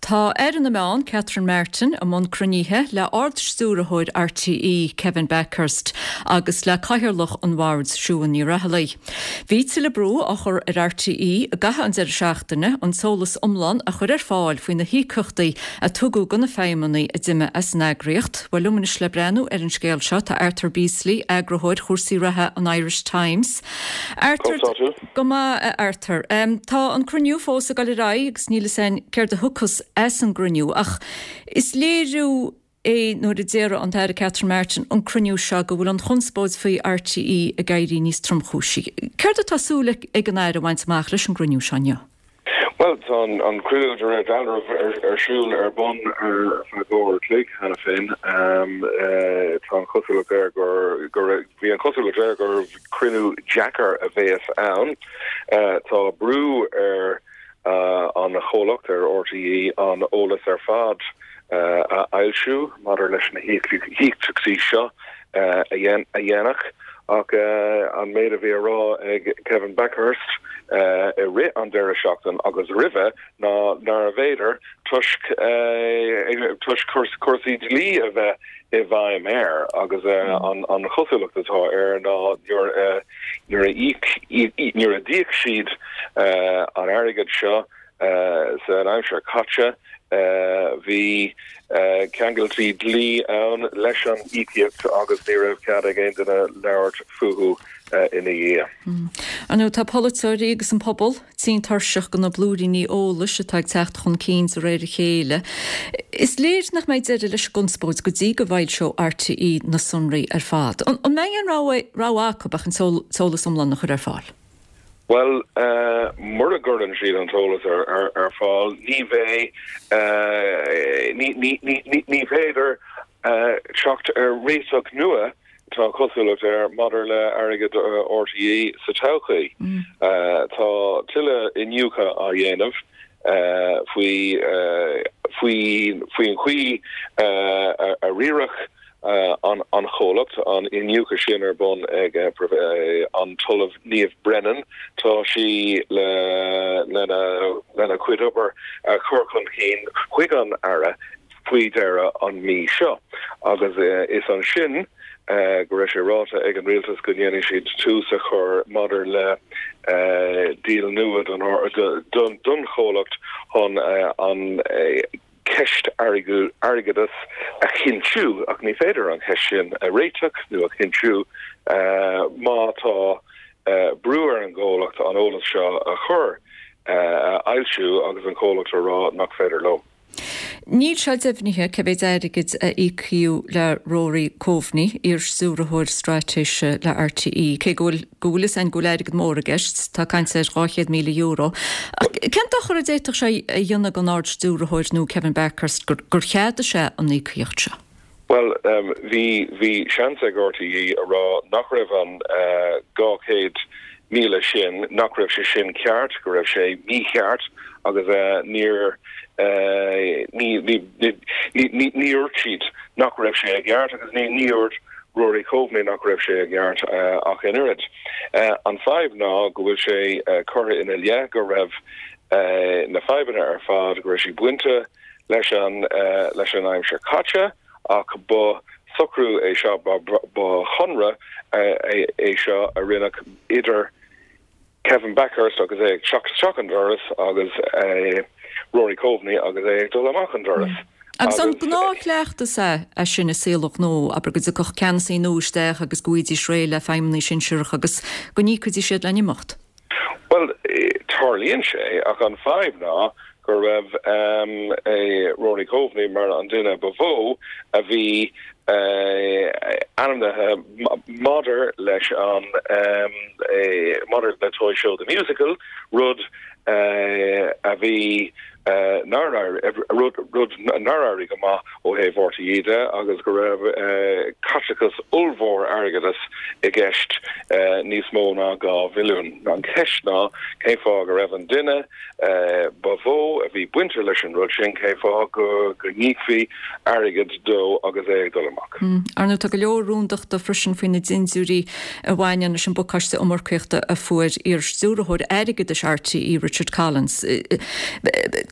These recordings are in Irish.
Tá Aire na Meán, Catherine Martin, i mbun cruinnithe le Ard-Stiúrthóir RTÉ, Kevin Bakhurst, agus le Cathaoirleach an Bhoird, Siún Ní Raghallaigh. Bhí tuilleadh brú á chur ar RTÉ i gcaitheamh an deireadh seachtaine an t-eolas iomlán a chur ar fáil faoi na híocaíochtaí a tugadh do na feidhmeannaigh a d'imigh as an eagraíocht. Bhuel, liom anois le breathnú ar an scéal seo tá Arthur Beesley, eagarthóir chúrsaí reatha an Irish Times. Arthur, Go maith, a Arthur. Tá an cruinniú fós ag dul ar aghaidh agus níl fhios againn céard a thiocfas as an gcruinniú ach is léiriú é nuair a déarfadh an tAire Catherine Martin an cruinniú seo go bhfuil an chonspóid faoi RTÉ ag éirí níos tromchúisí. Céard atá súil ag an Aire a bhaint amach leis an gcruinniú seo inniu? Bhuel, tá an cruinniú de réir dealraimh ar siúl ar bun ar feadh uair a chloig cheana féin. Tá an chosúlacht air gur, bhí an chosúlacht air gur cruinniú deacair a bheas ann. Tá brú ar an chomhlacht, ar RTÉ, an eolas ar fad a fhoilsiú maidir leis na híocaíochtaí seo a dhéanamh ach an méid a bhí á rá ag Kevin Bakhurst i rith an deireadh seachtain agus roimhe ná nárbh fhéidir toisc toisc cúrsaí dlí a bheith i bhfeidhm air agus an chosúlacht atá air ná nuair nuair a íoc nuair a d'íoc siad an airgead seo San aimsir caite, bhí ceangailtí dlí ann leis an íocaíocht agus ní raibh cead ag aon duine labhairt fúthu ina dhiaidh. Ar ndóigh, tá polaiteoirí agus an pobal tinn tuirseach de na blúiríní eolais atá ag teacht chun cinn de réir a chéile. Is léir nach mbeidh deireadh leis an gconspóid go dtí go bhfoilseoidh RTÉ na sonraí ar fad. An mbeidh aon rogha acu ach an t-eolas iomlán a chur ar fáil? Bhuel, mura gcuireann siad an t-eolas ar fáil, ní bheidh, ní féidir teacht ar réiteach nua, tá an chosúlacht air, maidir le airgead RTÉ sa todhchaí. Tá tuilleadh iniúchadh á dhéanamh faoi faoin chaoi a riaradh an chomhlacht, an iniúchadh sin ar bun ag an tOllamh Niamh Brennan. Tá sí lena cuid obair a chur chun cinn chuig an Aire faoi dheireadh an mhí seo agus is ansin go raibh sé ráite ag an Rialtas go ndéanfaidh siad tús a chur maidir le díol nua don chomhlacht chun an ceist airgeadais a chinntiú, ach ní féidir an cheist sin a réiteach nó a chinntiú má tá brú ar an gcomhlacht an eolas seo a chur, a fhoilsiú agus an comhlacht a rá nach féidir leo. Níl sé deimhnithe cé mhéid airgid a íocadh le Rory Coveney, iar-stiúrthóir straitéise le RTÉ, cé go bhfuil go bhfuil fhios againn go bhfuil airgead mór i gceist, tá caint ar €200,000. Ach cén dochar a d'fhéadfadh sé a dhéanamh don Ard-Stiúrthóir nua Kevin Bakhurst gur gur cheadaigh sé an íocaíocht seo? Bhuel, bhí, bhí seans ag RTÉ a rá nach raibh an 200,000 sin, nach raibh sé sin ceart, go raibh sé mícheart agus níor, ní, ní, ní, ní dúirt siad nach raibh sé i gceart agus ní, ní dúirt Rory Coveney nach raibh sé i gceart ach an oiread. An fadhb ná go bhfuil sé curtha ina leith go raibh na fadhbanna ar fad, go raibh siad bainte leis an leis an aimsir caite ach ba socrú é seo, ba chonradh é seo a rinneadh idir Kevin Bakhurst agus é ag teacht isteach an doras agus Rory Coveney agus é ag dul amach an doras. Agus an gnáthchleachtas é é sin i saol an ghnó, abair go dtiocfadh ceannasaí nua isteach agus go bhfaighidís réidh le feidhmeannaigh sinsearacha agus go n-íocfaidís iad lena n-imeacht? Bhuel, tarlaíonn sé, ach an fadhb ná go raibh Rory Coveney mar an duine ba mhó a bhí ainmnithe maidir leis an maidir le Toy Show The Musical, rud a bhí nár rud rud nár éirigh go maith ó thaobh RTÉ de agus go raibh caiteachas ollmhór airgeadais i gceist, níos mó ná 2 mhilliún. An cheist ná cén fáth go raibh an duine ba mhó a bhí bainte leis an rud sin, cén fáth go n-íocfaí airgead dó agus é ag dul amach. Ar ndóigh, tá go leor rúndachta freisin faoi na dindiúirí a bhaineann leis an bpacáiste iomarcaíochta a fuair iar-stiúrthóir airgeadais RTÉ, Richard Collins.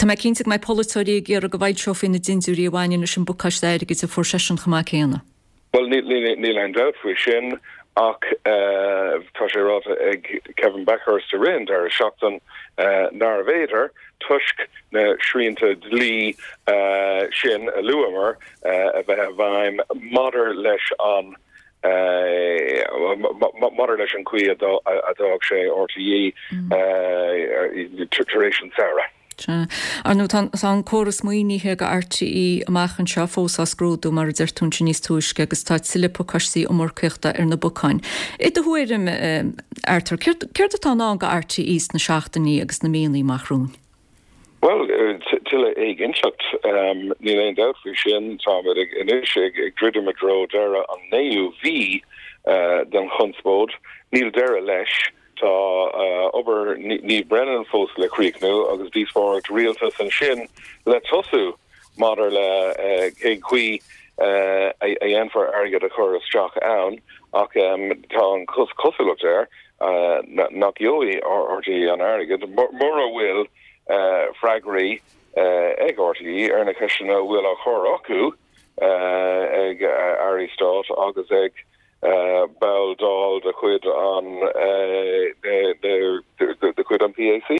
Tá mé cinnte go mbeidh polaiteoirí ag iarraidh go bhfoilseofaí na dindiúirí a bhaineann leis an bpacáiste airgid a fuair seisean chomh maith céanna. Bhuel, níl aon dabht faoi sin ach tá sé ráite ag Kevin Bakhurst i rith an deireadh seachtain nárbh fhéidir, toisc na srianta dlí sin a luamar a bheith i bhfeidhm maidir leis an maidir leis an chaoi a d'fhág sé RTÉ tar éis an tsamhraidh. Sea. Ar ndóigh, tá an córas maoinithe do RTÉ amach anseo fós á scrúdú, mar a deir tú ansin níos túisce, agus tá tuilleadh pacáistí iomarcaíochta ar na bacáin. I do thuairim, Arthur, céard atá i ndán do RTÉ sna seachtainí agus na míonna amach romhainn? Bhuel, tuilleadh éiginnteacht, níl aon dabht faoi sin. Táimid anois ag druidim i dtreo deireadh an naoú mhí den chonspóid. Níl deireadh leis. Tá obair Niamh Brennan fós le críochnú agus díospóireacht rialtais ansin le tosú maidir le cén chaoi a dhéanfar airgead a chur isteach ann ach tá an chosúlacht air nach gheobhaidh RTÉ an airgead mura bhfuil freagraí ag RTÉ ar na ceisteanna a bhfuil á chur acu ag airí stáit agus ag ball Dáil de chuid an de chuid an PAC.